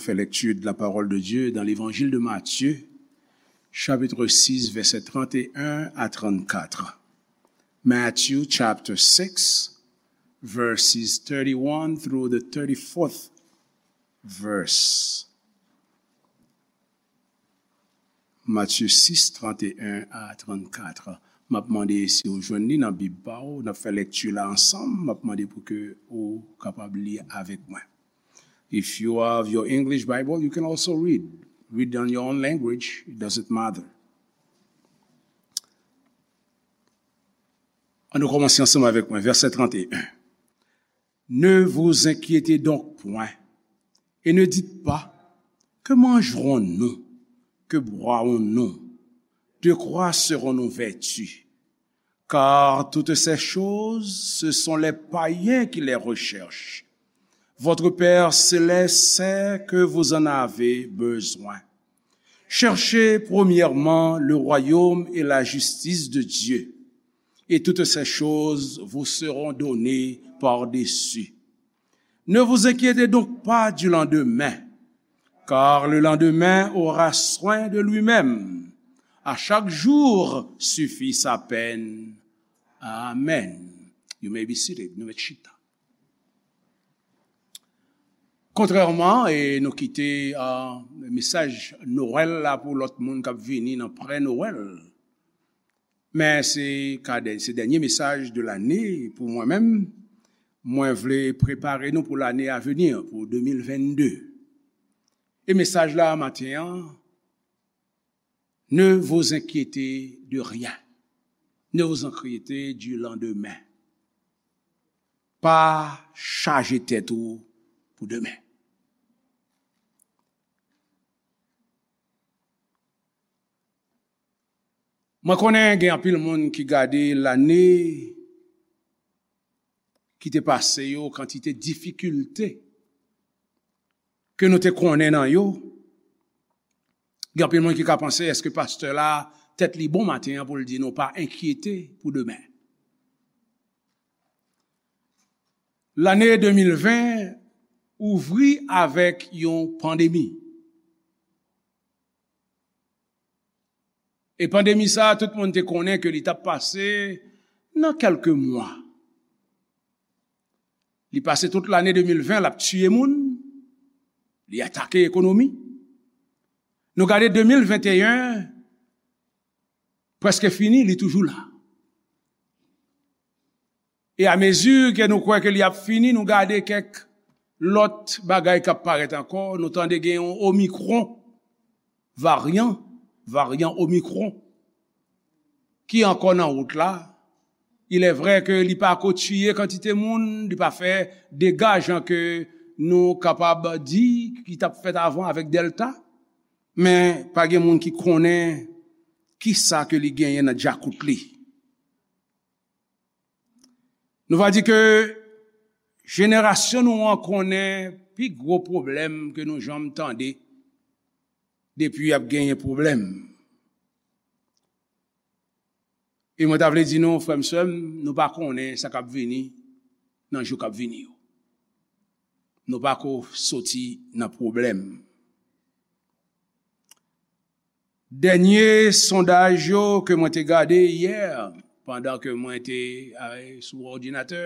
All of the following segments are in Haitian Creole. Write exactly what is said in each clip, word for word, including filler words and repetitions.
Fait lecture de la parole de Dieu dans l'évangile de Matthieu, chapitre six, versets trente et un à trente-quatre. Matthew chapter six, verses thirty-one through the thirty-fourth verse. Matye sis, trannteyen a trannkat. M ap mande si w jwenn li nan Bib pa w, n ap fè lekti la ansanm, m ap mande pou ke ou kapab li avèk mwen. If you have your English Bible, you can also read. Read on your own language, it doesn't matter. Ann nou kòmanse ansanm avèk mwen, vèsè trannteyen. Ne vous inquiétez donc point, et ne dites pas, que mangerons-nous, que boirons-nous, de quoi serons-nous vêtus? Car toutes ces choses, ce sont les païens qui les recherchent. Votre Père céleste sait que vous en avez besoin. Cherchez premièrement le royaume et la justice de Dieu, et toutes ces choses vous seront données par-dessus. Ne vous inquiétez donc pas du lendemain, car le lendemain aura soin de lui-même. À chaque jour suffit sa peine. Amen. You may be seated. Nou mèt chita. Kontrèman, e nou kite, ah, mesaj Nwèl la pou lòt moun k ap vini nan prè Nwèl. Men se ka dè-, se dènye mesaj de lane pou mwen menm. Mwen vle prepare nou pou lane a veni, pou de mil vennde. E mesaj la maten an, ne vous inquiétez de rien. Ne vous inquiétez du lendemain. Pa chaje tèt ou pou demen. Mwen konnen gen anpil moun ki gade lane ki te pase yo, kantite difikilte ke nou te konnen nan yo. Gen anpil moun ki ka panse, èske pastè la tèt li bon maten an pou l di nou pa enkyete pou demen? Lane de mil ven ouvri avèk yon pandemi. E pandemi sa a, tout moun te konnen ke li t ap pase nan kèlke mwa. Li pase tout lane de mil ven, l ap tiye moun, li atake ekonomi. Nou gade de mil venteyen, prèske fini, li toujou la. E amezi ke nou kwè ke li ap fini, nou gade kèk lòt bagay k ap parèt ankò. Nou tande gen yon Omicron, varyan, varyan Omicron, ki ankò nan wout la. Il est vrai ke li pa ko tiye kantite moun, li pa fè dega jan ke nou kapab di ki t ap fèt avan avèk Delta, men pa gen moun ki konnen kisa ke li genyen nan djakout li. Nou va di ke jenerasyon nou an konnen pi gwo pwoblèm ke nou janm tande depi y ap genyen pwoblèm. E mwen ta vle di nou, frè m, sè m, nou pa konnen sa k ap vini nan jou k ap vini yo. Nou pa ko soti nan pwoblèm. Dènye sondaj yo ke mwen te gade yè, pandan ke mwen te, eh, sou òdinatè,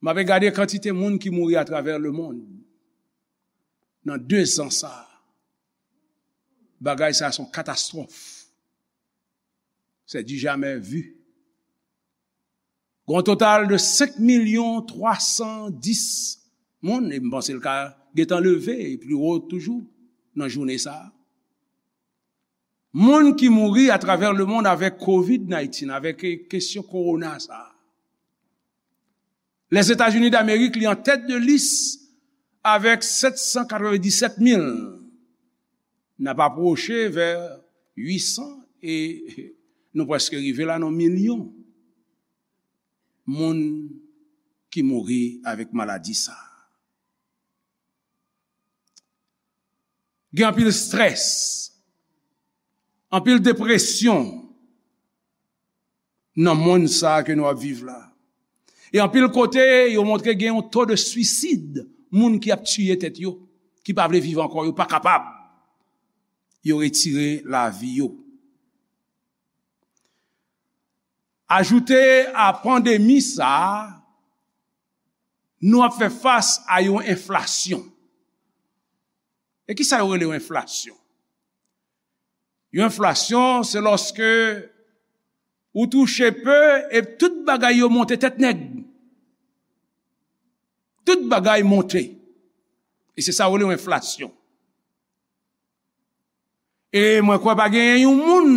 m ape gade kantite moun ki mouri atravè lemonn nan de zan sa a. Bagay sa a se yon katastwòf. C'est du jamais vu. Gon total de senk milyon twa san dis moun, e m panse l ka gentan leve e pi wo toujou nan jounen sa a. Moun ki mouri atravè lemonn avèk kovid diznèf, avèk, eh, kesyon kowona sa a. Lèzetazini Damerik, li an tèt de lis avèk sèt san katrevenndisèt mil. N ap apwoche vè uit san e nou prèske rive la nan milyon moun ki mouri avèk maladi sa a. Gen anpil strès, anpil depresyon nan monn sa a ke nou ap viv la. E anpil kote, yo montre gen yon to de swisid, moun ki ap tiye tèt yo. ki pa vle viv ankò, yo pa kapab. Yo retire lavi yo. Ajoute a pandemi sa a, nou ap fè fas a yon enflasyon. E kisa yo rele yon enflasyon? Yon enflasyon, se lòske ou touche pe e tout bagay yo monte tèt nèg. Tout bagay monte. E se sa yo rele yon enflasyon. E mwen kwè pa genyen yon moun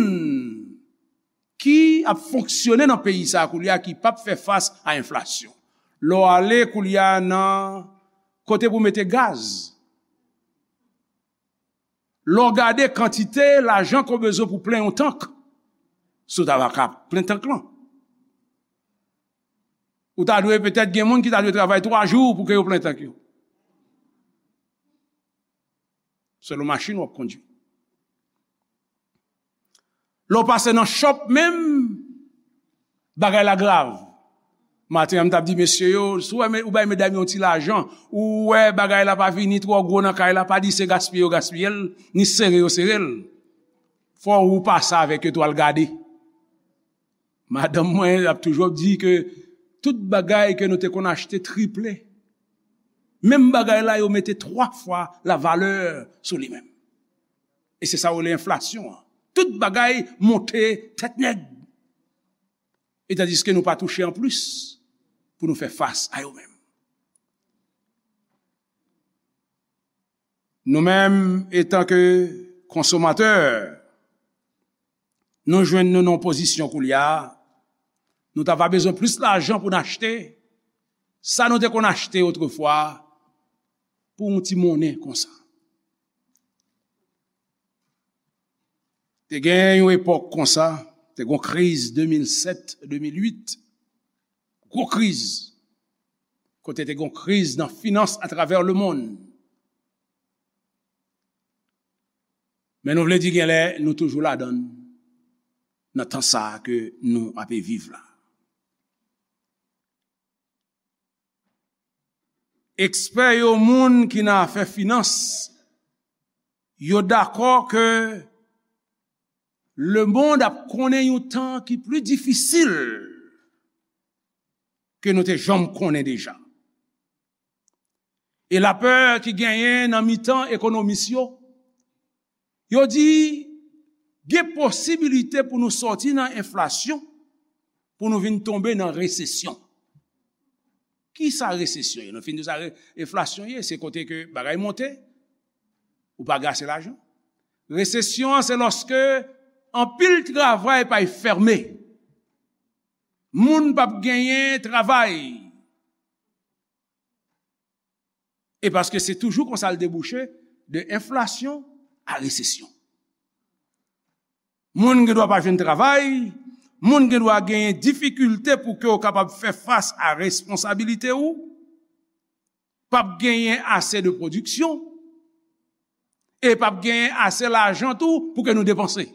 ki ap fonksyone nan peyi sa a koulye a ki p ap fè fas a enflasyon. Lè w ale koulye a nan kote pou mete gaz, lè w gade kantite lajan ke w bezwen pou plen yon tank, si w ta va ka plen tank lan, ou ta dwe petèt gen moun ki ta dwe travay twa jou pou ke yo plen tank yo. Selon machin w ap kondui. Lè w pase nan shop menm, bagay la grav. Maten an, m t ap di mesye yo, si w wè me-, ou bay medam yo yon ti lajan, ou wè bagay la pa vini twò gwo nan kay la, pa di se gaspiye yo gaspiye l, ni sere yo sere l. Fò ou pase avèk yo tou al gade. Madanm mwen ap toujou ap di ke tout bagay ke nou te konn achte triple. Menm bagay la, yo mete twa fwa la valè sou li menm. E se sa yo rele enflasyon an. Tout bagay monte tèt nèg. E tandiske nou pa touche anplis pou nou fè fas a yo menm. Nou menm, etanke konsomatè, nou jwenn nou nan yon pozisyon koulye a, nou ta va bezwen plis lajan pou n achte sa nou te konn achte otrefwa pou yon ti monnen konsa. Te gen yon epòk konsa, te gen yon kriz de mil sèt, de mil uit, gwo kriz, kote te gen yon kriz nan finans atravè lemonn. Men nou vle di genlè nou toujou ladan l, nan tan sa a ke nou ape viv la. Ekspè yo, moun ki nan afè finans, yo dakò ke lemonn ap konnen yon tan ki pli difisil ke nou te janm konnen deja. E lapè ki genyen nan mitan ekonomis yo, yo di gen posibilite pou nou sòti nan enflasyon, pou nou vin tonbe nan resesyon. Kisa resesyon ye? Nou fin di sa, re-, enflasyon ye, se kote ke bagay monte, ou pa gen ase lajan. Resesyon an, se lòske anpil travay pay fèmen. Moun p ap genyen travay. E paske se toujou konsa l debouche, de enflasyon a resesyon. Moun gen dwa pa jwenn travay, moun gen dwa genyen difikilte pou ke w kapab fè fas a responsabilite ou, p ap genyen ase de pwodiksyon, e p ap genyen ase lajan tou pou ke nou depanse.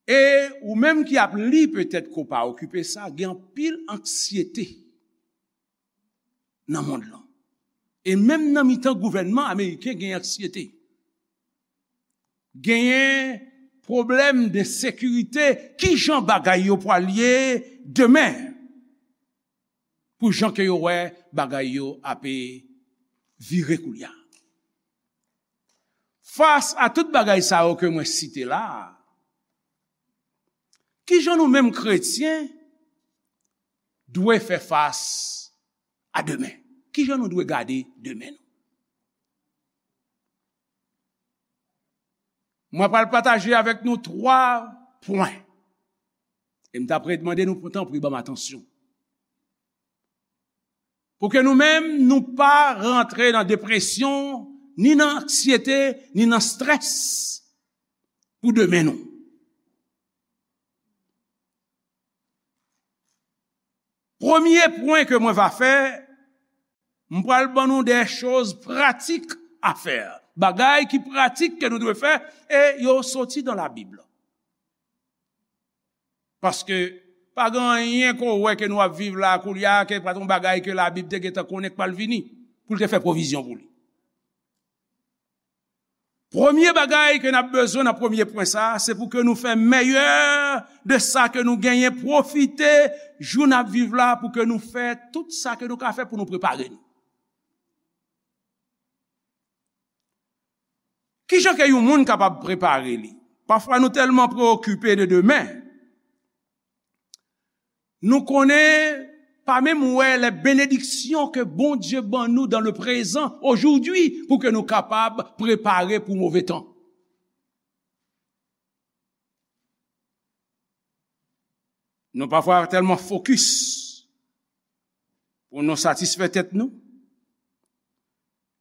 E ou menm ki ap li petèt ke w pa okipe sa, gen anpil anksyete nan mond lan. E menm nan mitan gouvènman ameriken gen anksyete. Genyen pwoblèm de sekirite, kijan bagay yo pral ye demen? Pou jan ke yo wè bagay yo ape vire koulye a. Fas a tout bagay sa yo ke mwen site la a, kijan nou menm kretyen dwe fè fas a demen? Kijan nou dwe gade demen nou? Mwen pral pataje avèk nou twa pwen. E m t ap mande nou pou tanpri ban m atansyon. Pou ke nou menm, nou pa rantre nan depresyon, ni nan anksyete, ni nan strès pou demen nou. Premye pwen ke mwen va fè, m pral ban nou de choz pratik a fè. Bagay ki pratik ke nou dwe fè, e yo soti dan Labib. Paske Pa gen anyen ke w wè ke nou ap viv la koulye a, ke pa t yon bagay ke Labib te gentan konnen k pral vini, pou l te fè pwovizyon pou li. Premye bagay ke n ap bezwen nan premye pwen sa a, se pou ke nou fè meyè de sa ke nou genyen, pwofite jou n ap viv la pou ke nou fè tout sa ke nou ka fè pou nou prepare nou. Kijan ke yon moun kapab prepare li? Pafwa nou tèlman preokipe de demen, nou konnen pa menm wè les bénédictions que Bondye ban nou dans le présent, aujourd'hui, pou ke nou kapab prepare pou move tan. Nou pafwa tèlman fokis pou nou satisfè tèt nou,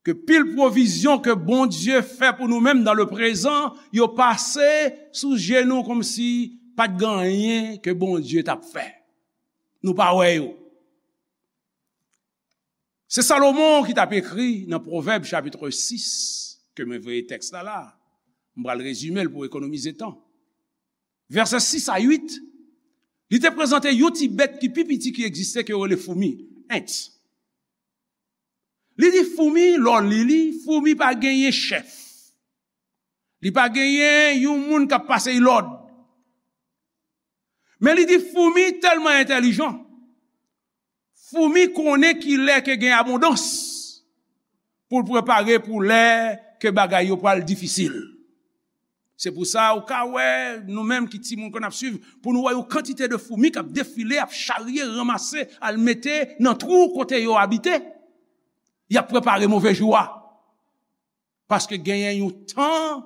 ke pil pwovizyon ke Bondye fè pou nou menm dans le présent, yo pase sou je nou kòmsi pa t gen anyen ke Bondye t ap fè. Nou pa wè yo. Se Salomon ki t ap ekri nan Pwovèb chapit sis, ke mwen voye tèks la la. M pral rezime l pou ekonomize tan. Vèsè sis a uit, li te prezante yon ti bèt ki pi piti ki egziste ke yo rele foumi, ant. Li di foumi, lè w li li, foumi pa genyen chèf. Li pa genyen yon moun k ap pase l lòd. Men li di foumi tèlman entèlijan. Foumi konnen ki lè ke gen abondans pou l prepare pou lè ke bagay yo pral difisil. Se pou sa ou ka wè, nou menm ki timoun ke n ap swiv, pou nou wè yon kantite de foumi k ap defile, ap charye, ranmase, al mete nan twou kote yo abite. Y ap prepare move jou a. Paske genyen yon tan,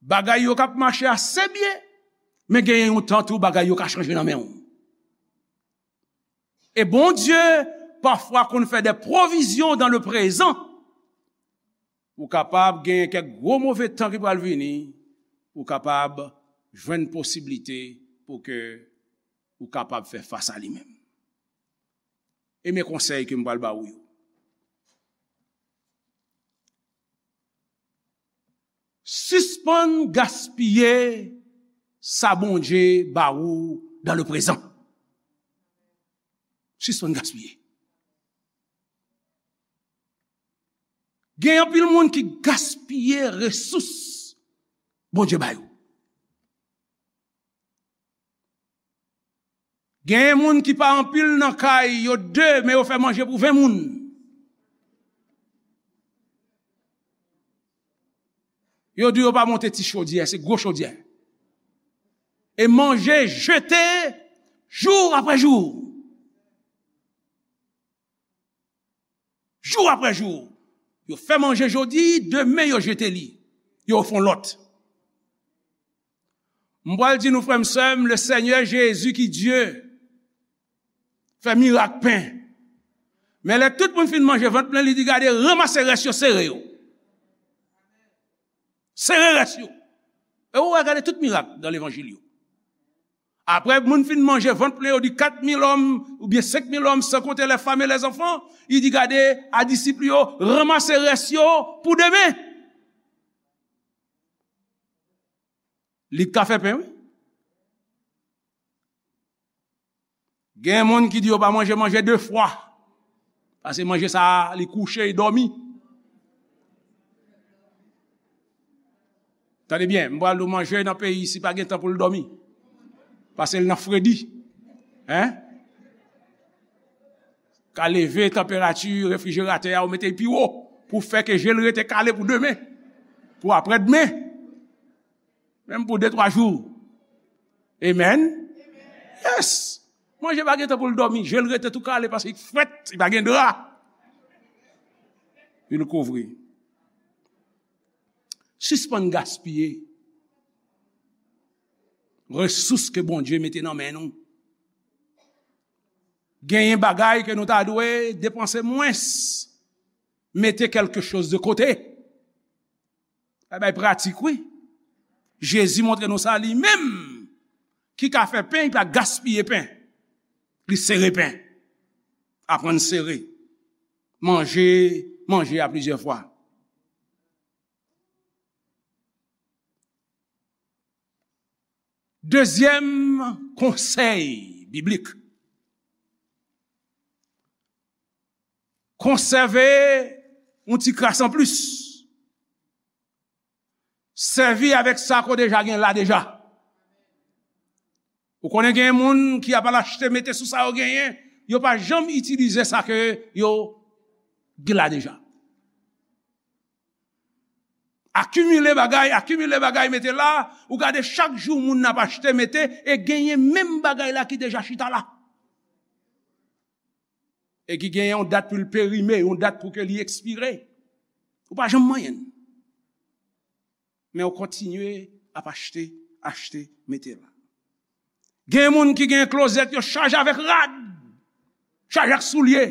bagay yo k ap mache ase byen, men genyen yon tan tou, bagay yo ka chanje nan men w. E Bondye, pafwa, konn fè de pwovizyon dans le présent, pou kapab genyen kèk gwo move tan ki pral vini, pou kapab jwenn posiblite pou ke ou kapab fè fas a li menm. E men konsèy ke m pral ba ou yo. Sispann gaspiye sa Bondye ba ou dans le présent. Sispann gaspiye. Gen anpil moun ki gaspiye resous Bondye ba yo. Gen moun ki pa anpil nan kay, yo de, men yo fè manje pou ven moun. Yo di yo pa monte ti chodyè, se gwo chodyè. E manje jete jou apre jou. Jou apre jou. Yo fè manje jodi, demen yo jete li. Yo fè yon lòt. M pral di nou, frè m, sè m, le Senyè Jezi ki Dye fè mirak pen. Men lè tout moun fin manje vant plen, li di, gade, ranmase rès yo, sere yo. Sere rès yo. E ou wè, gade tout mirak nan levanjil yo. Apre moun fin manje vant plen, yo di kat mil òm oubyen senk mil òm, san konte les femmes et les enfants, li di, gade, a disip yo, ranmase rès yo pou demen. Li ka fè pen, wi. Gen moun ki di yo pa manje manje de fwa. Paske manje sa a, li kouche, li dòmi. Tande byen, m pral di w manje nan peyi isi pa gen tan pou l dòmi. Paske l nan fredi. Hein? Ka leve tanperati refrijeratè a, ou mete l pi wo pou fè ke je l rete kale pou demen, pou aprè demen. Menm pou de, twa jou. Amen. Yes. Manje pa gen tan pou l dòmi. Je l rete tou kale paske l frèt, li pa gen dra. Pou l kouvri. Sispann gaspiye resous ke Bondye mete nan men nou. Genyen bagay ke nou ta dwe depanse mwens. Mete quelque chose de côté. Bagay pratik, wi. Jezi montre nou sa li menm ki ka fè pen, li pa gaspiye pen. Li sere pen. Aprann sere. Manje, manje a plizyè fwa. Dezyèm konsèy biblik. Konsève yon ti kras anplis. Sèvi avèk sa ke w deja gen la deja. Ou konnen gen moun ki ap al achte mete sou sa yo genyen, yo pa janm itilize sa ke yo gen la deja. Akimile bagay, akimile bagay mete la, ou gade chak jou moun ap achte mete e genyen menm bagay la ki deja chita la. E ki gen yon dat pou l perime, yon dat pou ke li ekspire. Ou pa janm manyen l. Men ou kontinye ap achte, achte, mete la. Gen moun ki gen klozèt yo chaje avèk rad, chaje ak soulye.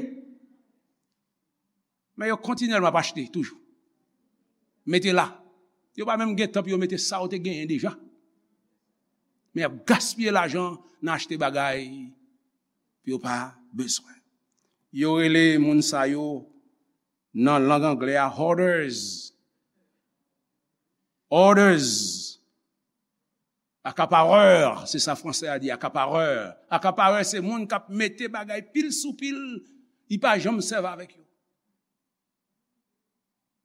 Men yo kontinyèlman ap achte toujou. Mete la. Yo pa menm gen tan pou yo mete sa yo te genyen deja. Men y ap gaspiye lajan nan achte bagay pou yo pa bezwen. Yo rele moun sa yo nan lang anglè a hoarders. Hoarders. Akaparè, se sa fransè a di, akaparè. Akaparè se moun k ap mete bagay pil sou pil, li pa janm sèvi avèk yo.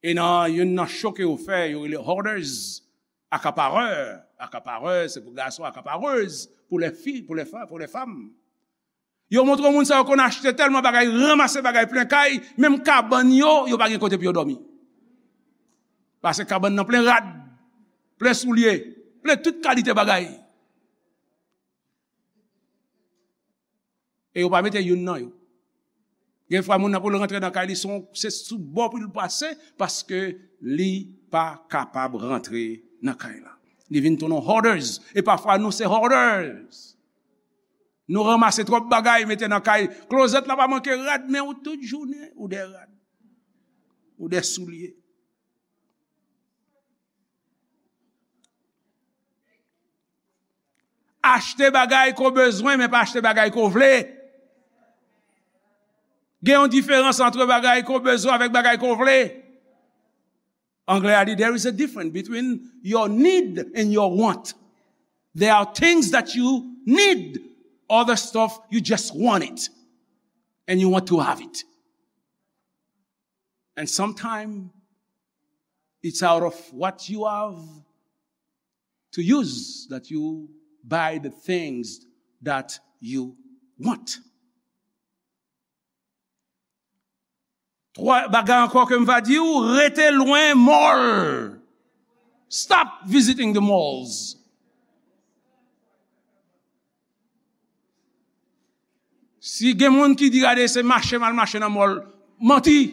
E nan youn nan cho ke yo fè, yo rele hoarders, akaparè. Akaparè, se pou gason, akaparèz, pou lè fi, pou lè fa, pou lè fanm. Yo montre moun sa yo konn achte tèlman bagay, ranmase bagay plen kay, menm kabann yo, yo pa gen kote pou yo dòmi. Paske kabann nan plen rad, plen soulye, plen tout kalite bagay. E yo pa mete youn nan yo. Gen fwa moun nan pou l rantre nan kay li, se yon, se sou bò pou l pase, paske li pa kapab rantre nan kay la. Li vin tounen hoarders. E pafwa nou se hoarders. Nou ranmase twòp bagay, mete nan kay. Klozèt la pa manke rad, men ou tout jounen, ou de rad. Ou de soulye. Achte bagay ke w bezwen, men pa achte bagay ke w vle. Gen yon diferans ant bagay ke w bezwen avèk bagay ke w vle. Anglè a di, there is a difference between your need and your want. There are things that you need, other stuff you just want it. And you want to have it. And sometimes it's out of what you have to use that you buy the things that you want. Twa bagay ankò ke m va di w, rete lwen mall. Stop visiting the malls. Si gen moun ki di gade se mache m al mache nan mall, manti.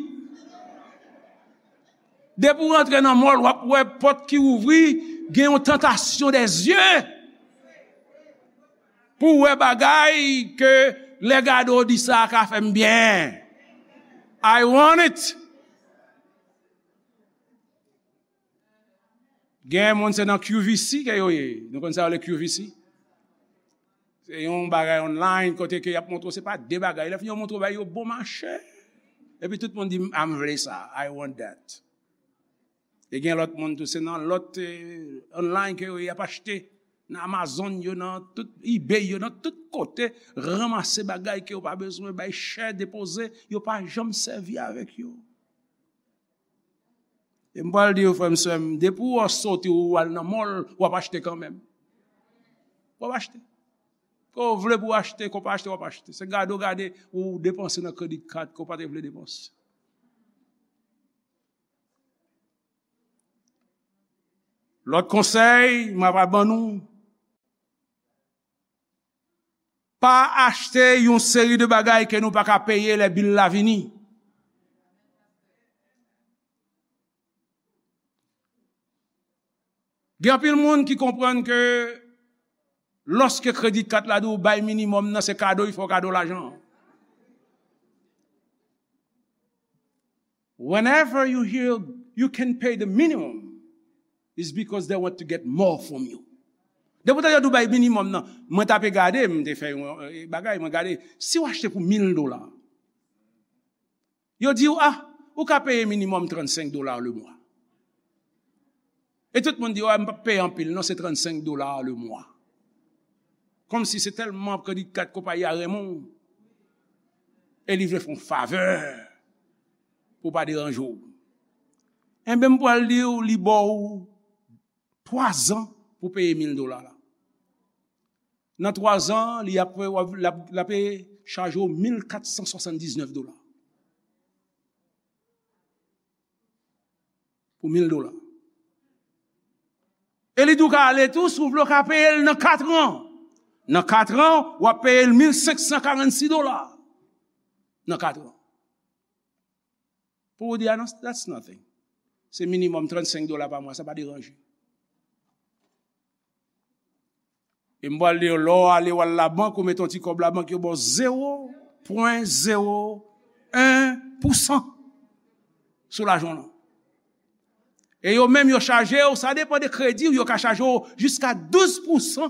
Depi w rantre nan mall, w ap wè pòt ki ouvri, gen yon tantasyon dè zye. Pou w wè bagay ke lè gade w di sa ka fè m byen. I want it. Gen moun se nan Q V C ke yo ye. Nou konn sa yo le Q V C? Se yon bagay online kote ke y ap montre w se pa de bagay. Lè fini yo montre w bagay yo bon mache. Epi tout moun di, "Ah, m vle sa. I want that." E gen lòt moun tou, se nan lòt, eh, online ke yo y ap achte. Nan Amazon yo, nan tout eBay yo, nan tout kote, ranmase bagay ke yo pa bezwen, bay chè, depoze, yo pa janm sèvi avèk yo. E m pral di yo, frè m, sè m, depi w sote ou al nan mall, w ap achte kanmenm. W ap achte. Ke w vle pou w achte, ke w pa achte, w ap achte. Se gade w gade, ou depanse nan credit card ke w pa te vle depanse. Lòt konsèy, m ap ban nou, pa achte yon seri de bagay ke nou pa ka peye lè bil la vini. Gen anpil moun ki konprann ke lòske credit card la di w bay minimòm nan, se kado, li fè w kado lajan. Whenever you hear you can pay the minimum, it's because they want to get more from you. Depi w tande yo di w bay minimòm nan, mwen tape gade, m te fè yon, eh, bagay, mwen gade, si w achte pou mil dola, yo di w, ah, ou ka peye minimòm trannsenk dola le mwa. E tout moun di, ah, m p ap peye anpil, non, se trannsenk dola le mwa. Kòmsi se tèlman kredi kat konpayi a renmen w. E li vle fè w favè pou w pa deranje w. Enben, m pral di w, li ba w twa zan pou peye mil dola la. Nan twa zan, li ap, l ap, l ap chaje w mil kat san swasanndiznèf dola. Pou mil dola. E li di w ka ale tou, si w vle w ka peye l nan kat an. Nan kat an, w ap peye l mil senk san karannsis dola. Nan kat an. Pou w di, "Ah non, that's nothing." Se minimòm trannsenk dola pa mwa, sa pa deranje. E m pral di w, lè w ale w al labank, ou mete yon ti kòb labank, yo ba w zewo pwen zewo en pousan sou lajan w lan. E yo menm, yo chaje w, sa depann de kredi w, yo ka chaje w jiska douz pousan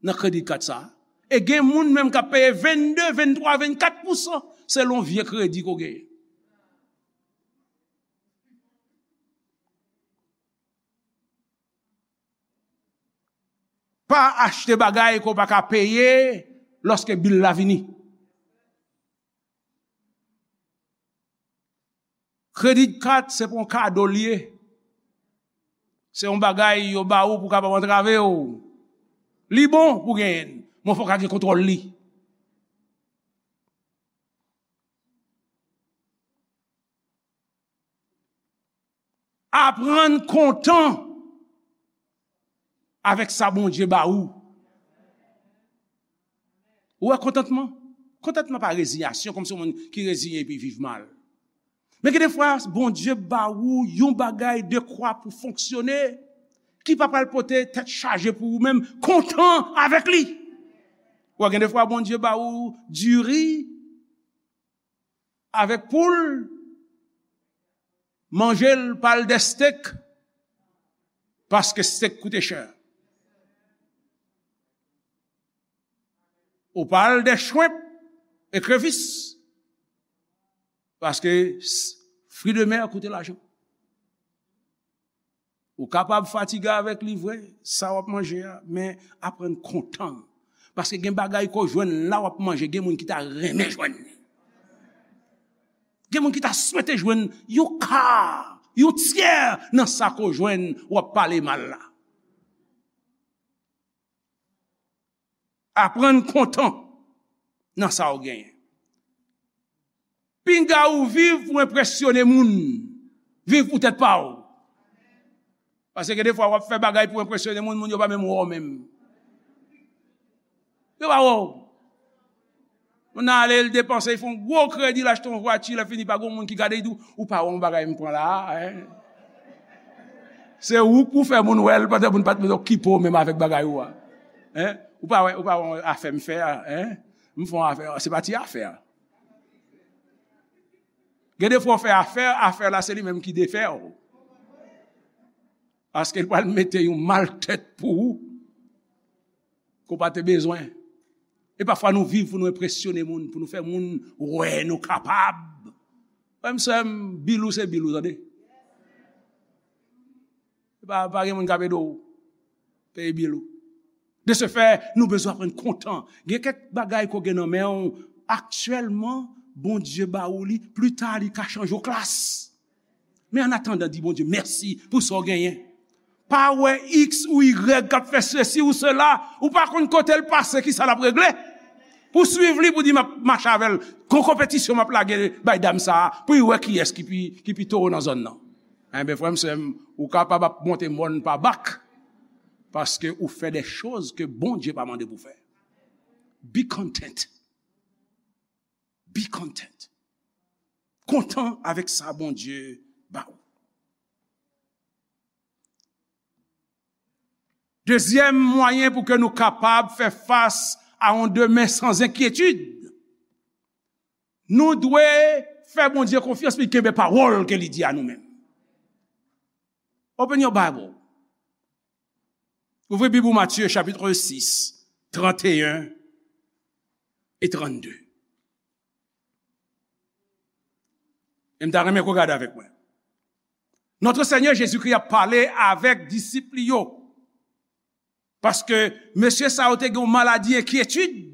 nan kredi kat sa a. E gen moun menm k ap peye vennde, venntwa, vennkat pousan, selon vye kredi ke w genyen. Pa achte bagay ke w pa ka peye lòske bil la vini. Kredi kat se pa yon kado l ye. Se yon bagay yo ba ou pou w kapab antrave w. Li bon pou w genyen l, men fò w ka gen kontwòl li. Aprann kontan avèk sa Bondye ba ou. Ou wè kontantman? Kontantman pa reziyasyon, kòmsi yon moun ki reziyen epi viv mal. Men gen defwa, Bondye ba ou yon bagay dekwa pou fonksyone, ki pa pral pote tèt chaje pou ou menm, kontan avèk li. Ou wè, gen defwa, Bondye ba ou diri, avèk poul, manje l pa al dè stek, paske stek koute chè. Ou pa al dè chwenp, ekrevis, paske s-, fri de mè koute lajan. Ou kapab fatige avèk li vre, sa w ap manje a, men aprann kontan. Paske gen bagay ke w jwenn la w ap manje, gen moun ki ta renmen jwenn li. Gen moun ki ta swete jwenn yon ka, yon tyè nan sa ke w jwenn, w ap pale mal la. Aprann kontan nan sa w genyen. Pinga ou viv pou enpresyone moun. Viv pou tèt pa w. Paske gen defwa w ap fè bagay pou enpresyone moun, moun yo pa menm wè w menm. Yo pa wè w. Moun nan ale, l depanse, l fè yon gwo kredi, l achte yon vwati, lè fini pa gen moun ki gade, li di w, "Ou pa wè yon bagay m pran la a, en?" Se ou k pou fè moun wè l, pandan moun pa t menm okipe w menm avèk bagay ou a. En? Ou pa wè, ou pa wè yon afè m fè a, en? M fè yon afè, se pa ti afè a. Gen defwa w fè afè, afè la se li menm ki defè w. Paske l pral mete yon mal tèt pou ou ke w pa te bezwen. E pafwa nou viv pou nou enpresyone moun, pou nou fè moun wè nou kapab. Frè m, sè m, bil ou se bil ou, tande. Pa, pa gen moun k ap ede w peye bil ou. De ce fait, nou bezwen aprann kontan. Gen kèk bagay ke w gen nan men w aktyèlman, Bondye ba ou li, pita li ka chanje w klas. Men an atandan, di Bondye mèsi pou sa w genyen. Pa wè X ou Y k ap fè sesi ou sela, ou pa konn kote l pase, kisa l ap regle. Pou swiv li, pou di m ap mache avè l, gon konpetisyon m ap lage bay dam sa a, pou l wè kiyès ki pi, ki pi towo nan zòn nan. Enben, frè m, sè m, ou kapab ap monte mòn pa bak, paske ou fè de choz ke Bondye pa mande pou fè. Be content. Be content. Kontan avèk sa Bondye ba ou. Dezyèm mwayen pou ke nou kapab fè fas a yon demen san enkyetid, nou dwe fè Bondye konfyans, li kenbe pawòl ke li di a nou menm. Open your Bible. Ouvri Bib ou, Matye, chapit sis, tranteyen e trannde. E m ta renmen ke w gade avèk mwen. Notre Seigneur Jésus-Christ ap pale avèk disip li yo. Paske mesye sa yo te gen yon maladi enkyetid.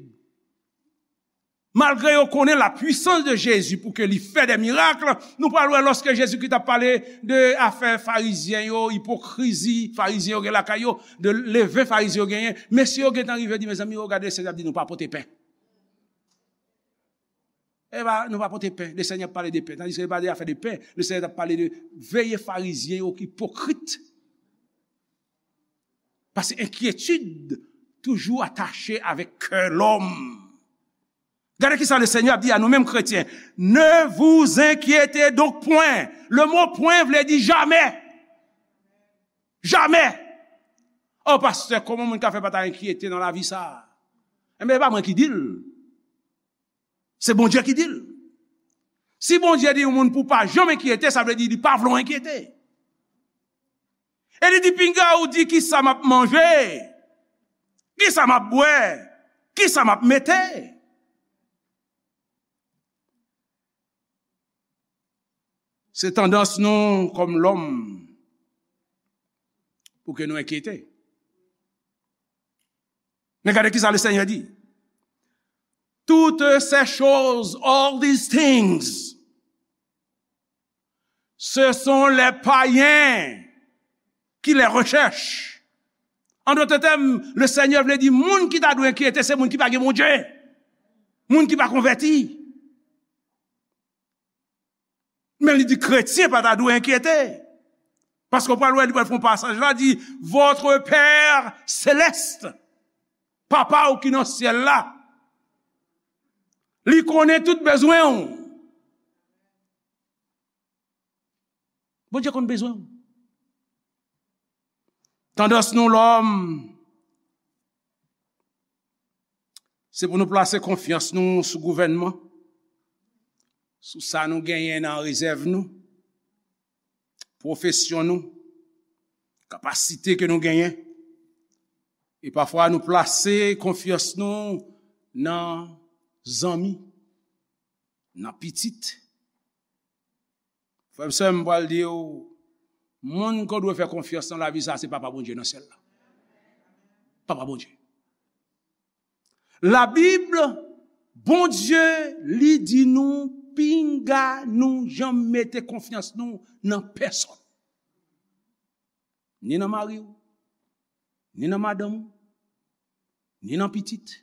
Malgre yo konnen la puissance de Jésus pou ke li fè de mirak, nou pral wè lòske Jezikri t ap pale de afè Farizyen yo, ipokrizi Farizyen yo gen lakay yo, de leven Farizyen yo genyen, mesye yo gentan rive di, mezanmi, yo gade, Senyè ap di nou pa pote pen. E pa, nou pa pote pen. Le Senyè ap pale de pen. Tandis ke li pa de afè de pen. Le Senyè t ap pale de veye Farizyen yo ki ipokrit. Paske enkyetid toujou atache avèk kè lòm. Gade ki sa le Senyè ap di a nou menm kretyen. Ne vous inquiétez donc point. Le mot point vle di jamè. Jamè. Oh, pastè, kòman moun ka fè pa ta enkyete nan lavi sa? Enben, e pa mwen ki di l. Se Bondye ki di l. Si Bondye di yon moun pou pa janm enkyete, sa vle di li pa vle w enkyete. E li di, pinga ou di, kisa m ap manje, kisa m ap bwè, kisa m ap mete. Se tandans nou kòm lòm pou ke nou enkyete. Men gade kisa le Senyè di. Toutes ces choses, all these things, ce sont les païens qui les recherchent. En d'autres termes, le Senyè vle di moun ki ta dwe enkyete se moun ki pa gen Bondye, moun ki pa konvèti. Men li di kretyen pa ta dwe enkyete. Paske w pral wè, li pral fè yon pasaj la, di, votre Père céleste, Papa w ki nan syèl la, li konnen tout bezwen w. Bondye konn bezwen w. Tandans nou lòm, se pou nou plase konfyans nou sou gouvènman, sou sa nou genyen nan rezèv nou, pwofesyon nou, kapasite ke nou genyen. E pafwa nou plase konfyans nou nan zanmi, nan pitit. Frè m, sè m, m pral di w, moun ke w dwe fè konfyans nan lavi sa, se Papa Bondye nan syèl la. Papa Bondye. Labib, Bondye, li di nou, pinga nou janm mete konfyans nou nan pèsonn. Ni nan mari w, ni nan madanm ou, ni nan pitit.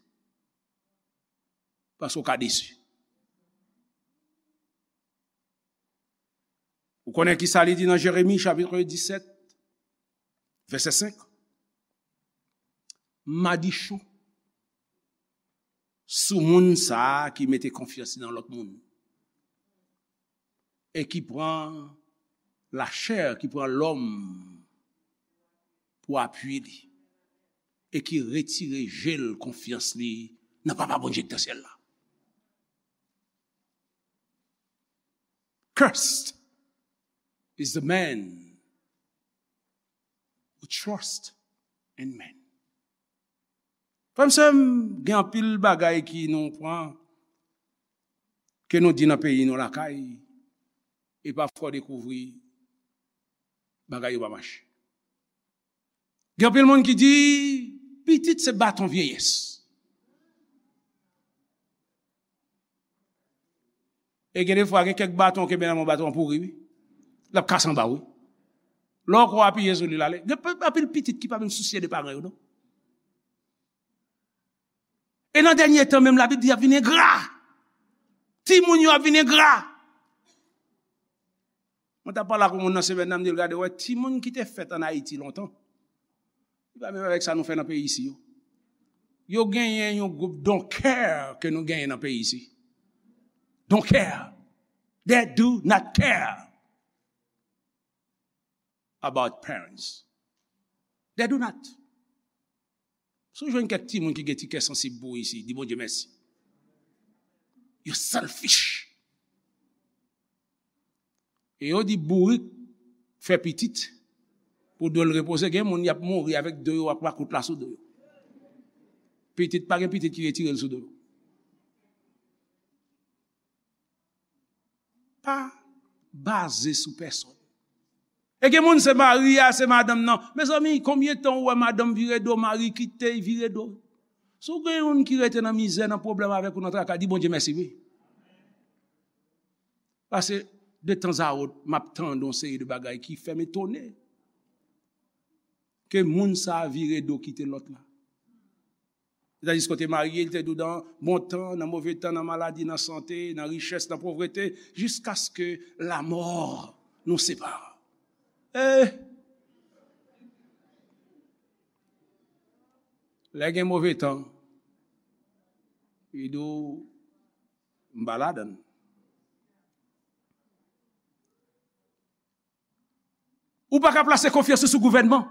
Paske w ka desi. Ou konnen ki sa li di nan Jeremi chapit disèt, vèsè senk? Madichon sou moun sa a ki mete konfyans li nan lòt moun e ki pran lachè, ki pran lòm pou apui li e ki retire je l, konfyans li nan Papa Bondye ki nan syèl la. Cursed is the man who trust in man. Frè m, sè m, gen anpil bagay ki nou pran, ke nou di nan peyi nou lakay, e pafwa w dekouvri bagay yo pa mache. Gen anpil moun ki di, pitit se baton vyeyès. E gen defwa, gen kèk baton w kenbe nan men w, baton an pouri, wi. L ap kase anba w, wi. Lè w kwè w apiye sou li, l ale. Gen pe-, anpil pitit ki pa menm sousye de paran yo, non. E nan dènye tan menm, Labib di y ap vin engra. Timoun yo ap vin engra. Mwen t ap pale ak yon moun nan semèn nan, m di l, gade, wè, timoun ki te fèt ann Ayiti lontan, li pa menm avèk sa nou fè nan peyi isi yo. Yo genyen yon gwoup don't care ke nou genyen nan peyi isi. Don't care. They do not care about parents. They do not. Si w jwenn kèk timoun ki gen ti kè sansib pou ou isi, di Bondye mèsi. Yo selfish. E yo di bourik fè pitit pou do l repoze. Gen moun y ap mouri avèk do yo ak makout la sou do yo. Pitit, pa gen pitit ki retire l sou do yo. Pa baze sou pèsonn. E gen moun se mari a, se madanm nan. Mezanmi, konbyen tan ou wè madanm vire do, mari kite, vire do? Si w gen youn ki rete nan mizè, nan pwoblèm avèk ou, nan traka, di Bondye mèsi, wi. Paske de tanzawòt, m ap tande yon seri de bagay ki fè m etone ke moun sa a vire do kite lòt la. Sètadi kote marye, li te dou nan bon tan, nan move tan, nan maladi, nan sante, nan richès, nan povrete, jiskaske lamò nou separe. Eh! Lè gen move tan, li di w, m pa ladan l. Ou pa ka plase konfyans ou sou gouvènman.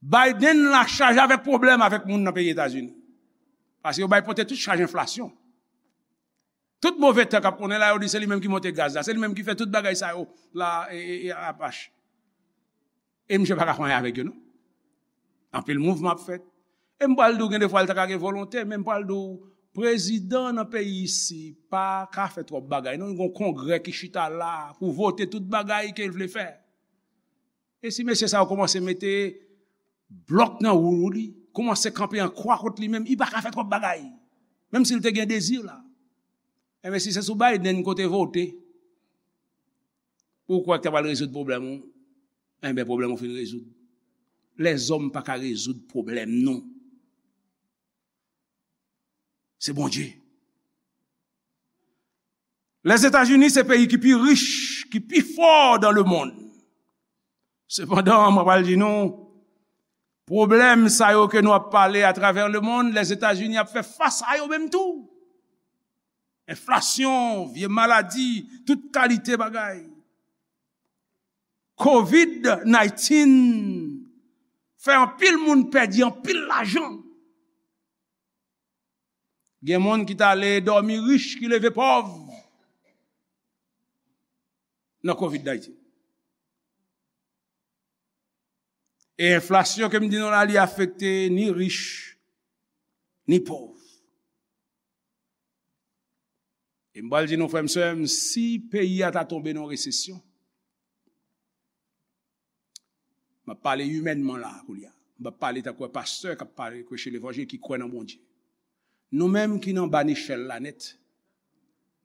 Biden la chaje avèk pwoblèm avèk moun nan peyi Etazini. Paske yo bay pote tout chaj enflasyon. Tout move tan k ap konnen la, yo di se li menm ki monte gaz la, se li menm ki fè tout bagay sa yo la, e, e, e, apach. E misye pa ka fè anyen avèk yo, non. Anpil mouvman ap fèt. E m pral di w, gen de fwa l ta ka gen volonte, men m pral di w, prezidan nan peyi isi pa ka fè twòp bagay, non. Li gen yon kongrè ki chita la pou vote tout bagay ke l vle fè. E si mesye sa yo kòmanse mete blòk nan wou li, kòmanse kanpe an kwa kont li menm, li pa ka fè twòp bagay. Menm si l te gen dezi la. Enben, si se sou Biden kote vote, ou kwè k ta pral rezoud pwoblèm ou? Enben, pwoblèm ou fin rezoud. Lèzòm pa ka rezoud pwoblèm nou. Se Bondye. Lèzetazini se peyi ki pi rich, ki pi fò dan lemonn. Sepandan, mwen pral di nou, pwoblèm sa yo ke nou ap pale atravè lemonn, Lèzetazini ap fè fas a yo menm tou. Enflasyon, vye maladi, tout kalite bagay. Covid nineteen fè anpil moun pèdi anpil lajan. Gen moun ki t ale dòmi rich, ki leve pòv nan Covid nineteen. E enflasyon ke m di nou la, li afekte ni rich, ni pòv. E m pral di nou, frè m, sè m, si peyi a ta tonbe nan resesyon, m ap pale imènman la, kounye a. M p ap pale tankou pastè k ap pale, preche levanjil, ki kwè nan Bondye. Nou menm ki nan ba nechèl la nèt,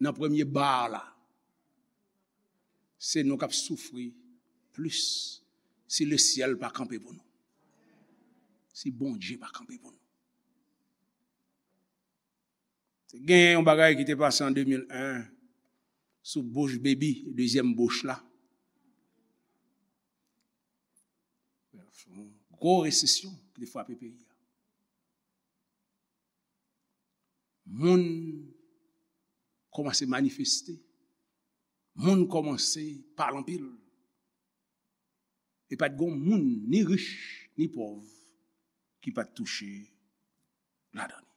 nan premye ba la, se nou k ap soufri plis si lesyèl pa kanpe pou nou. Si Bondye pa kanpe pou nou. Te gen yon bagay ki te pase an de mil en sou Bush Baby, dezyèm Bush la. Yon gwo resesyon ki te frape peyi a. Moun kòmanse manifeste. Moun kòmanse pale anpil. E pa t gen moun, ni rich, ni pòv, ki pa t touche ladan li.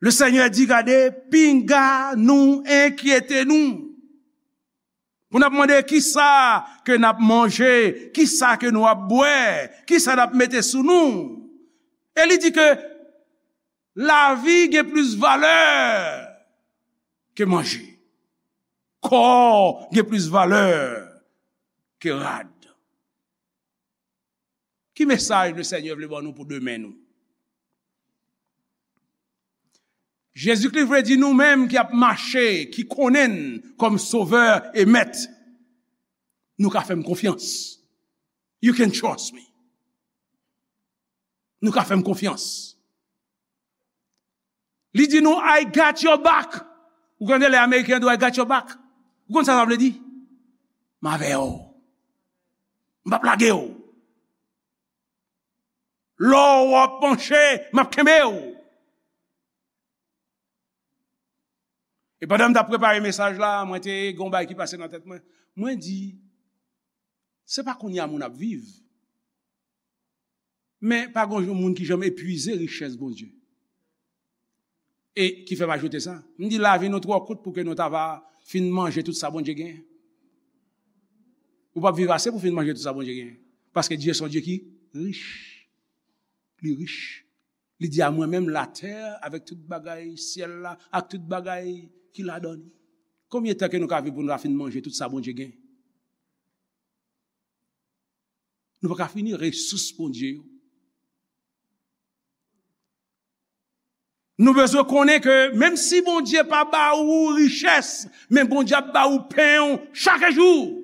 Le Senyè di, gade, pinga nou enkyete nou. Pou n ap mande kisa ke n ap manje, kisa ke nou ap bwè, kisa n ap mete sou nou. E li di ke lavi gen plis valè ke manje. Kò gen plis valè ke rad. Ki mesaj Lesenyè vle ban nou pou demen nou? Jezikri vle di nou menm ki ap mache, ki konnen l kòm Sovè e Mèt, nou ka fè m konfyans. You can trust me. Nou ka fè m konfyans. Li di nou, "I got your back." Ou konn lè Ameriken di w, "I got your back." Ou konn sa sa vle di? M avè w. M p ap lage w. Lè w ap panche, m ap kenbe w. E pandan m t ap prepare mesaj la, mwen te gen yon bagay ki pase nan tèt mwen. Mwen di, se pa kounye a moun ap viv. Men pa gen yon moun ki janm epuize richès Bondye. E ki fè m ajoute sa? M di lavi nou twò kout pou ke nou ta va fin manje tout sa Bondye genyen. Ou p ap viv ase pou fin manje tout sa Bondye genyen. Paske Dye se yon Dye ki rich. Li rich. Li di, "A mwen menm latè avèk tout bagay syèl la, ak tout bagay ki ladan li." Konbyen tan ke nou ka viv pou nou ta fin manje tout sa Bondye genyen? Nou pa ka fini resous Bondye yo. Nou bezwen konnen ke menm si Bondye pa ba ou richès, men Bondye ap ba ou pen w chak jou.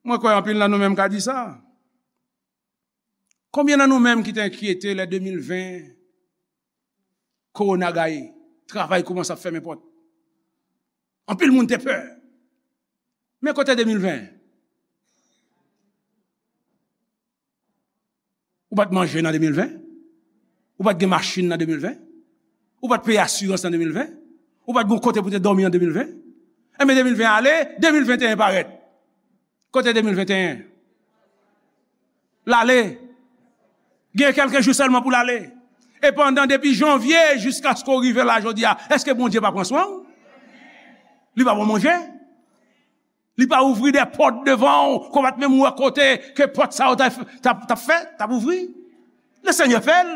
Mwen kwè anpil nan nou menm ka di sa. Konbyen nan nou menm ki te enkyete lè de mil ven, kowona gaye, travay kòmanse ap fèmen pòt? Anpil moun te pè. Men kote de mil ven? Ou pa t manje nan de mil ven? Ou pa t gen machin nan de mil ven? Ou pa t peye asirans nan de mil ven? Ou pa t gen kote pou te dòmi an de mil ven? Enben, de mil ven ale, de mil venteyen parèt. Kote de mil venteyen? L ale. Gen kèlke jou sèlman pou l ale. E pandan, depi janvye jiskaske w rive la jodi a, èske Bondye pa pran swen w? Li pa ba w manje? Li pa ouvri de pòt devan w, ke w pa t menm wè kote ke pòt sa yo t ap, t ap, t ap fèt, t ap ouvri? Le Senyè fè l.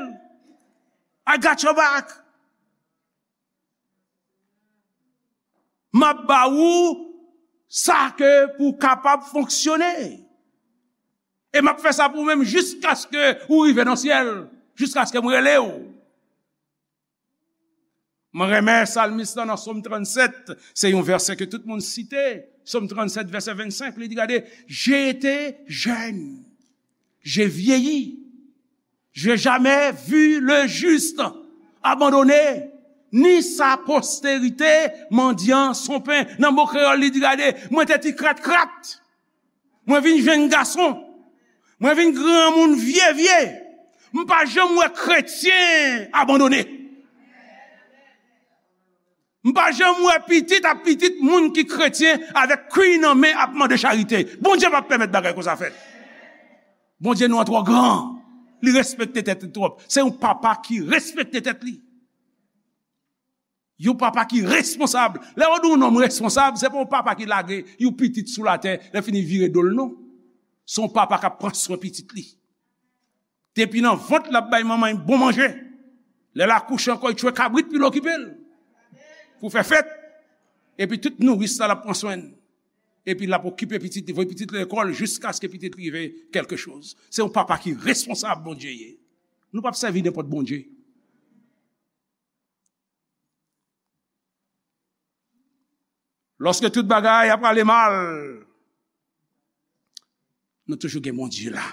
I got your back. M ap ba ou sa ke pou w kapab fonksyone. E m ap fè sa pou ou menm jiskaske ou rive nan syèl, jiskaske m rele w. Mwen renmen salmis lan nan Sòm trannsèt, se yon vèsè ke tout moun site. Sòm trannsèt, vèsè vennsenk, li di, gade, j'ai été jeune, j'ai vieilli, j'ai jamais vu le juste abandonné, ni sa postérité mendiant son pain. Nan mo kreyòl, li di, gade, mwen te ti krat krat. Mwen vin jenn gason. Mwen vin granmoun vye vye. M pa janm wè kretyen abandone. M pa janm wè pitit ap pitit moun ki kretyen avèk kwi nan men ap mande charite. Bondye p ap pèmèt bagay konsa fèt. Bondye nou an twò gran. Li respekte tèt li twòp. Se yon papa ki respekte tèt li. Yon papa ki responsab. Lè yo di yon nonm responsab, se pa yon papa ki lage yon pitit sou latè, lè fini vire do l, non. Se yon papa k ap pran swen pitit li. Depi nan vant, l ap bay manman l bon manje. Lè l akouche ankò, l tchwe kabrit pou l okipe l. Pou fè fèt. Epi tout nouris la, l ap pran swen l. Epi l ap okipe pitit li, voye pitit li lekòl jiskaske pitit li rive kèlke choz. Se yon papa ki responsab Bondye ye. Nou p ap sèvi nenpòt Bondye. Lòske tout bagay ap ale mal, nou toujou gen Bondye la.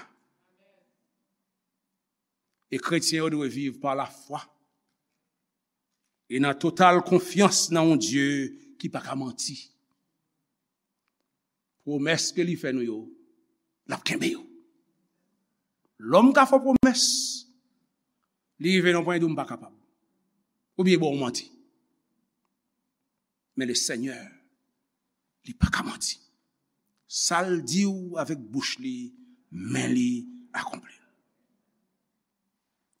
E kretyen yo dwe viv pa lafwa e nan total konfyans nan yon Dye ki pa ka manti. Pwomès ke li fè nou yo, l ap kenbe yo. Lòm ka fè w pwomès, li rive nan pwen di w, "M pa kapab." Oubyen ba w manti. Men le Senyè, li pa ka manti. Sa l di w avèk bouch li, men li akonpli l.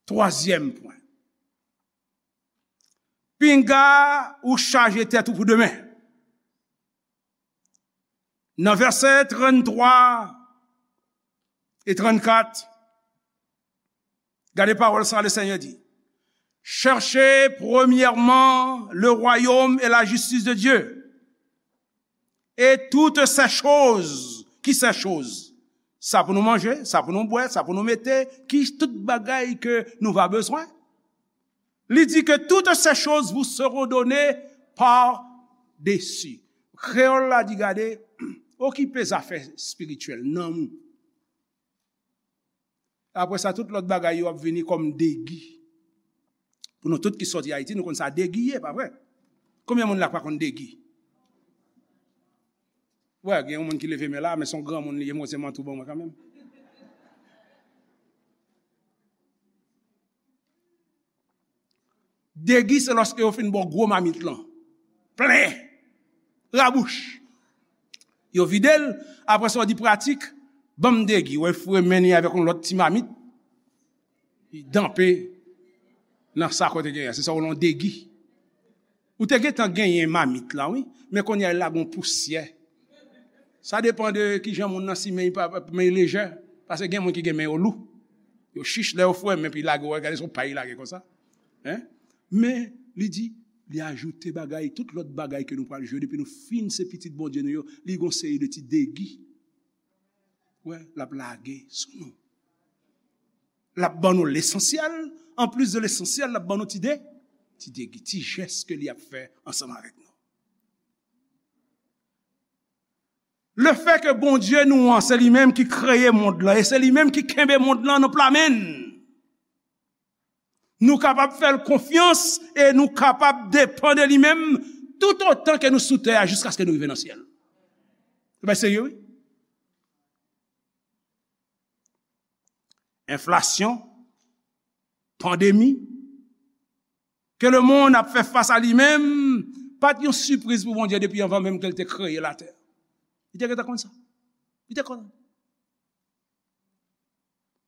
Twazyèm pwen. Pinga ou chaje tèt ou pou demen. Nan vèsè tranntwa e trannkat, gade pawòl sa, le Senyè di, "Cherchez premièrement le royaume et la justice de Dieu, et toutes ces choses." Ki ces choses? Sa pou nou manje, sa pou nou bwè, sa pou nou mete, ki tout bagay ke nou va bezwen. Li di ke toutes ces choses vous seront données par-dessus. Kreyòl la di, gade, okipe zafè espirityèl, nanm ou. Apre sa, tout lòt bagay yo ap vini kòm degi. Pou nou tout ki sòti Ayiti, nou konn sa degi ye, pa vre? Konbyen moun la k pa konn degi? Wè, gen yon moun ki leve men la, men se yon granmoun li ye, mwen se mantou ban mwen kanmenm. Degi se lòske yo fin ba w gwo mamit lan. Plen. Rabouch. Yo vide l, apre sa w di pratik, "Ban m degi." Wè, foure men li avèk yon lòt ti mamit. Li danpe nan sa kote genyen. Se sa w rele yon degi. Ou te gentan genyen mamit la, wi. Men kounye a, l lage yon pousyè. Sa depann de kijan moun nan si men pa, men lejè. Paske gen moun ki gen men yo lou. Yo chich, lè yo foure men, epi lage, w gade se yon pay lage konsa. Hein? Men, li di, Li ajoute bagay, tout lòt bagay ke nou pral jwe depi nou fin se pitit Bondye nou yo, li gon seri de ti degi. Wè, l ap lage sou nou. L ap ban nou lesansyèl, anplis de lesansyèl, l ap ban nou ti de, ti degi, ti jès ke li ap fè ansanm avèk nou. Lefètke Bondye nou an, se li menm ki kreye mond lan, e se li menm ki kenbe mond lan nan pla men l. Nou kapab fè l konfyans e nou kapab depann de li menm toutotan ke nou sou tè a, jiskaske nou rive nan syèl. Se pa serye, wi. Enflasyon, pandemi, ke lemonn ap fè fas a li menm, pa t yon sipriz pou Bondye depi anvan menm ke l te kreye latè. Li te gentan konn sa. Li te konn.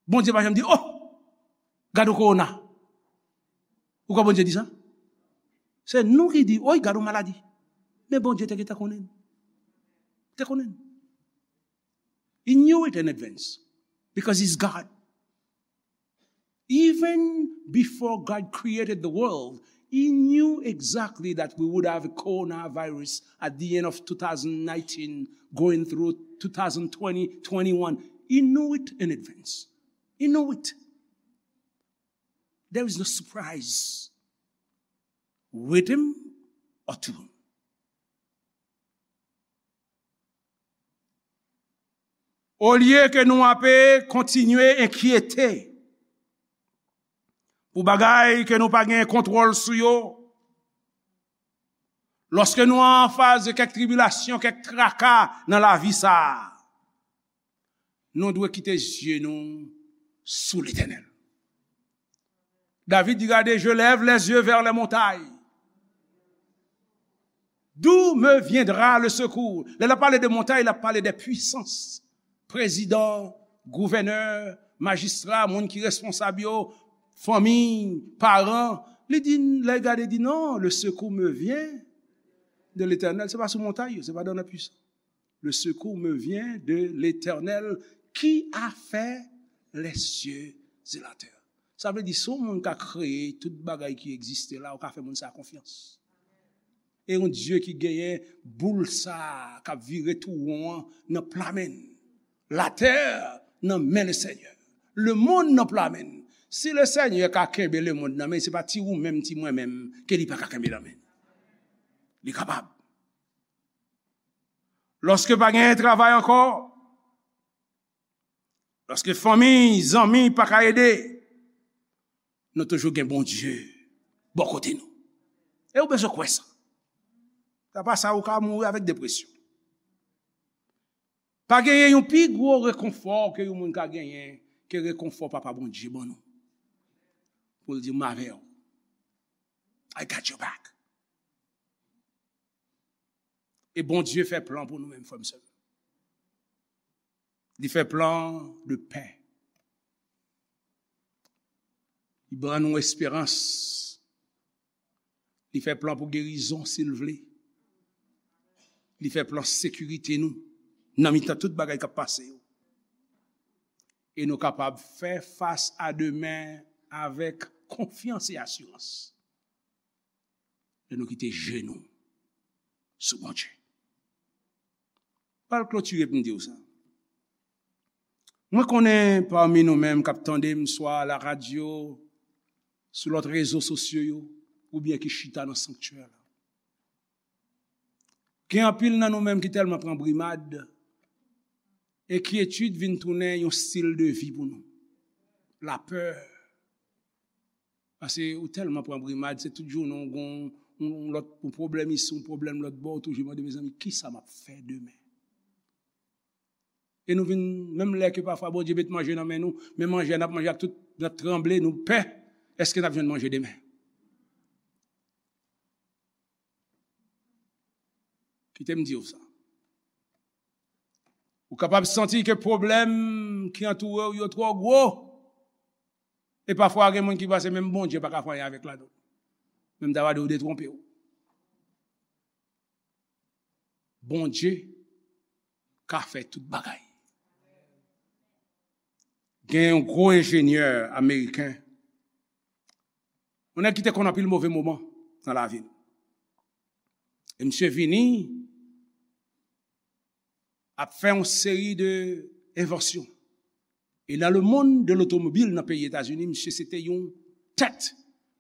Bondye pa janm di, "Oh, gade yon kowona." Ou kwè Bondye di sa? Se nou ki di, "Oy, gade yon maladi." Men Bondye te gentan konnen. Te konnen. He knew it in advance because he's God. Even before God created the world, he knew exactly that we would have a coronavirus at the end of two thousand nineteen, going through two thousand twenty, twenty-one. He knew it in advance. He knew it. There is no surprise with him or to him. Olye ke nou ape kontinye enkyete pou bagay ke nou pa gen kontwòl sou yo, lòske nou an fas de kèk tribilasyon, kèk traka nan lavi sa a, nou dwe kite zye nou sou Letènèl. David di, "Gade, je lève les yeux vers les montagnes. D'où me viendra le secours?" Lè l ap pale de montay, l ap pale de pwisans. Prezidan, gouvènè, majistra, moun ki responsab yo, fanmi, paran. Li di, lè l gade, di, "Non, le secours me vient de l'Éternel." Se pa sou montay yo, se pa dans la puissance. Le secours me vient de l'Éternel qui a fait les cieux et la terre. Sa vle di, si yon moun ka kreye tout bagay ki egziste la, ou ka fè moun sa konfyans. E yon Dye ki genyen boul sa k ap vire tou won an nan pla men l. Latè nan men le Senyè. Lemonn nan pla men l. Si le Senyè ka kenbe lemonn nan men l, se pa ti ou menm, ti mwen menm, ke li pa ka kenbe nan men l. Li kapab. Lòske pa genyen travay ankò, lòske fanmi, zanmi pa ka ede, nou toujou gen Bondye bò kote nou. E ou bezwen kwè sa. Sa pa sa, ou ka mouri avèk depresyon. Pa genyen yon pi gwo rekonfò ke yon moun ka genyen ke rekonfò Papa Bondye ban nou. Pou l di, "M avè w. I got your back." E Bondye fè plan pou nou menm, frè m, sè m. Li fè plan de pè. Li ban nou esperans. Li fè plan pou gerizon, si l vle. Li fè plan sekirite nou nan mitan tout bagay k ap pase yo. E nou kapab fè fas a demen avèk konfyans e asirans. Lè nou kite je nou sou Bondye. Pral klotire pou m di w sa. Mwen konnen pami nou menm k ap tande m, swa la radyo, sou lòt rezo sosyo yo, oubyen ki chita nan sanktyè la. Gen anpil nan nou menm ki tèlman pran brimad, enkyetid vin tounen yon stil de vi pou nou. Lapè. Paske ou tèlman pran brimad, se tout jounen ou gon yon lòt, yon pwoblèm isi, yon pwoblèm lòt bò, ou toujou mande, "Mezanmi, kisa m ap fè demen?" E nou vin, menm lè ke pafwa Bondye met manje nan men nou, men manje a n ap manje ak tout, n ap tranble, nou pè, èske n ap jwenn manje demen? Kite m di w sa. Ou kapab santi ke pwoblèm ki antoure w yo twò gwo. E pafwa, gen moun ki panse menm Bondye pa ka fè anyen avèk ladan l. Men m ta va di w detwonpe w. Bondye ka fè tout bagay. Gen yon gwo enjenyè ameriken, yon nèg ki te konn anpil move moman nan lavi l. E misye vini ap fè yon seri de envansyon. E nan le monde de l'automobile nan peyi Etazini, misye se te yon tèt.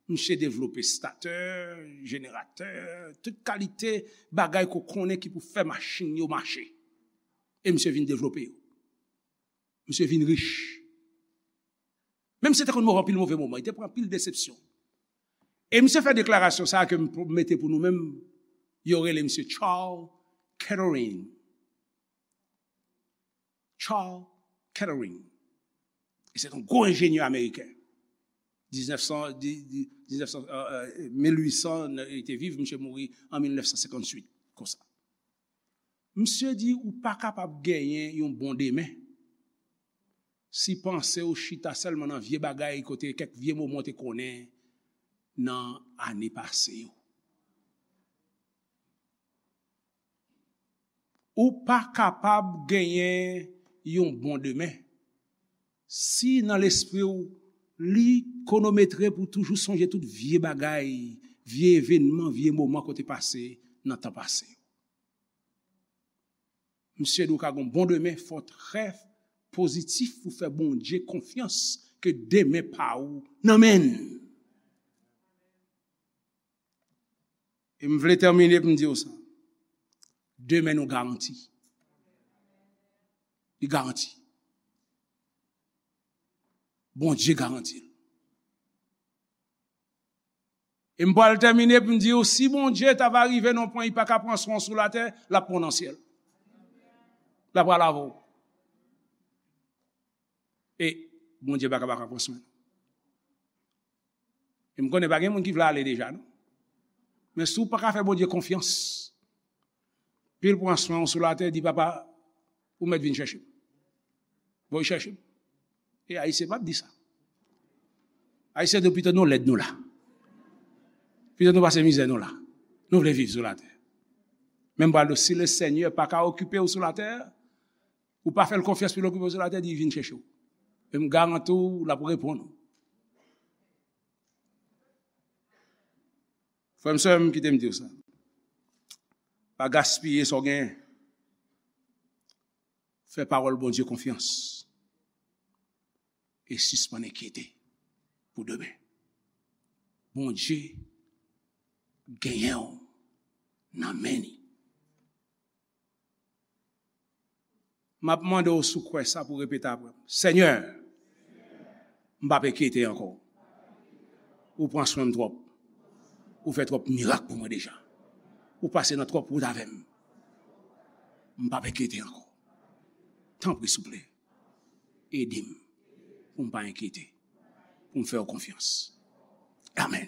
Misye devlope statè, jeneratè, tout kalite bagay ke w konnen ki pou fè machin yo mache. E misye vin devlope yo. Misye vin rich. Menm si te konn move anpil move moman, li te pran anpil desepsyon. E misye fè deklarasyon sa a ke m mete pou nou menm, yo rele misye Charles Kettering. Charles Kettering. E se yon gwo enjenyè ameriken. Diznèf san, di- di- diznèf san, euh, euh, mil uit san, li te viv, misye mouri an mil nèf san senkantuit, konsa. Misye di ou pa kapab genyen yon bon demen si panse w chita sèlman nan vye bagay kote kèk vye moman w te konnen nan ane pase yo. Ou pa kapab genyen yon bon demen si nan lespri w li konometre pou toujou sonje tout vye bagay, vye evènman, vye moman kote pase nan tan pase. Misye di w ka gon bon demen, fò w trè pozitif pou fè Bondye konfyans ke demen pa ou nan men l. E m vle tèmine pou m di w sa. Demen nou garanti. Li garanti. Bondye garanti l. E m pral tèmine pou m di w, si Bondye ta va rive nan yon pwen, li pa ka pran swen w sou latè, l ap pran w nan syèl. L ap pral avè w. E Bondye pa ka, pa ka pran swen nou. E m konnen pa gen moun ki vle ale deja, non. Men si w pa ka fè Bondye konfyans, pi l pran swen w sou latè, di, "Papa, ou mèt vin chèche m." Voye chèche m. E Ayisyen p ap di sa. Ayisyen di, "Pito nou lèd nou la. Pito nou pase mizè nou la. Nou vle viv sou latè." Men m pral di w, si le Senyè pa ka okipe w sou latè, ou pa fè l konfyans pou l okipe w sou latè, di, "Vin chèche w." E m garanti w, l ap reponn ou. Frè m, sè m, kite m di w sa. Pa gaspiye sa w genyen. Fè pawòl Bondye konfyans. E sispann enkyete pou demen. Bondye genyen w nan men li. M ap mande w si w kwè sa pou w repete apre m. Senyè, m p ap enkyete ankò. Ou pran swen m twòp. Ou fè twòp mirak pou mwen deja. Ou pase nan twòp wout avè m. M p ap enkyete ankò. Tanpri, souple, ede m pou m pa enkyete, pou m fè w konfyans. Amèn.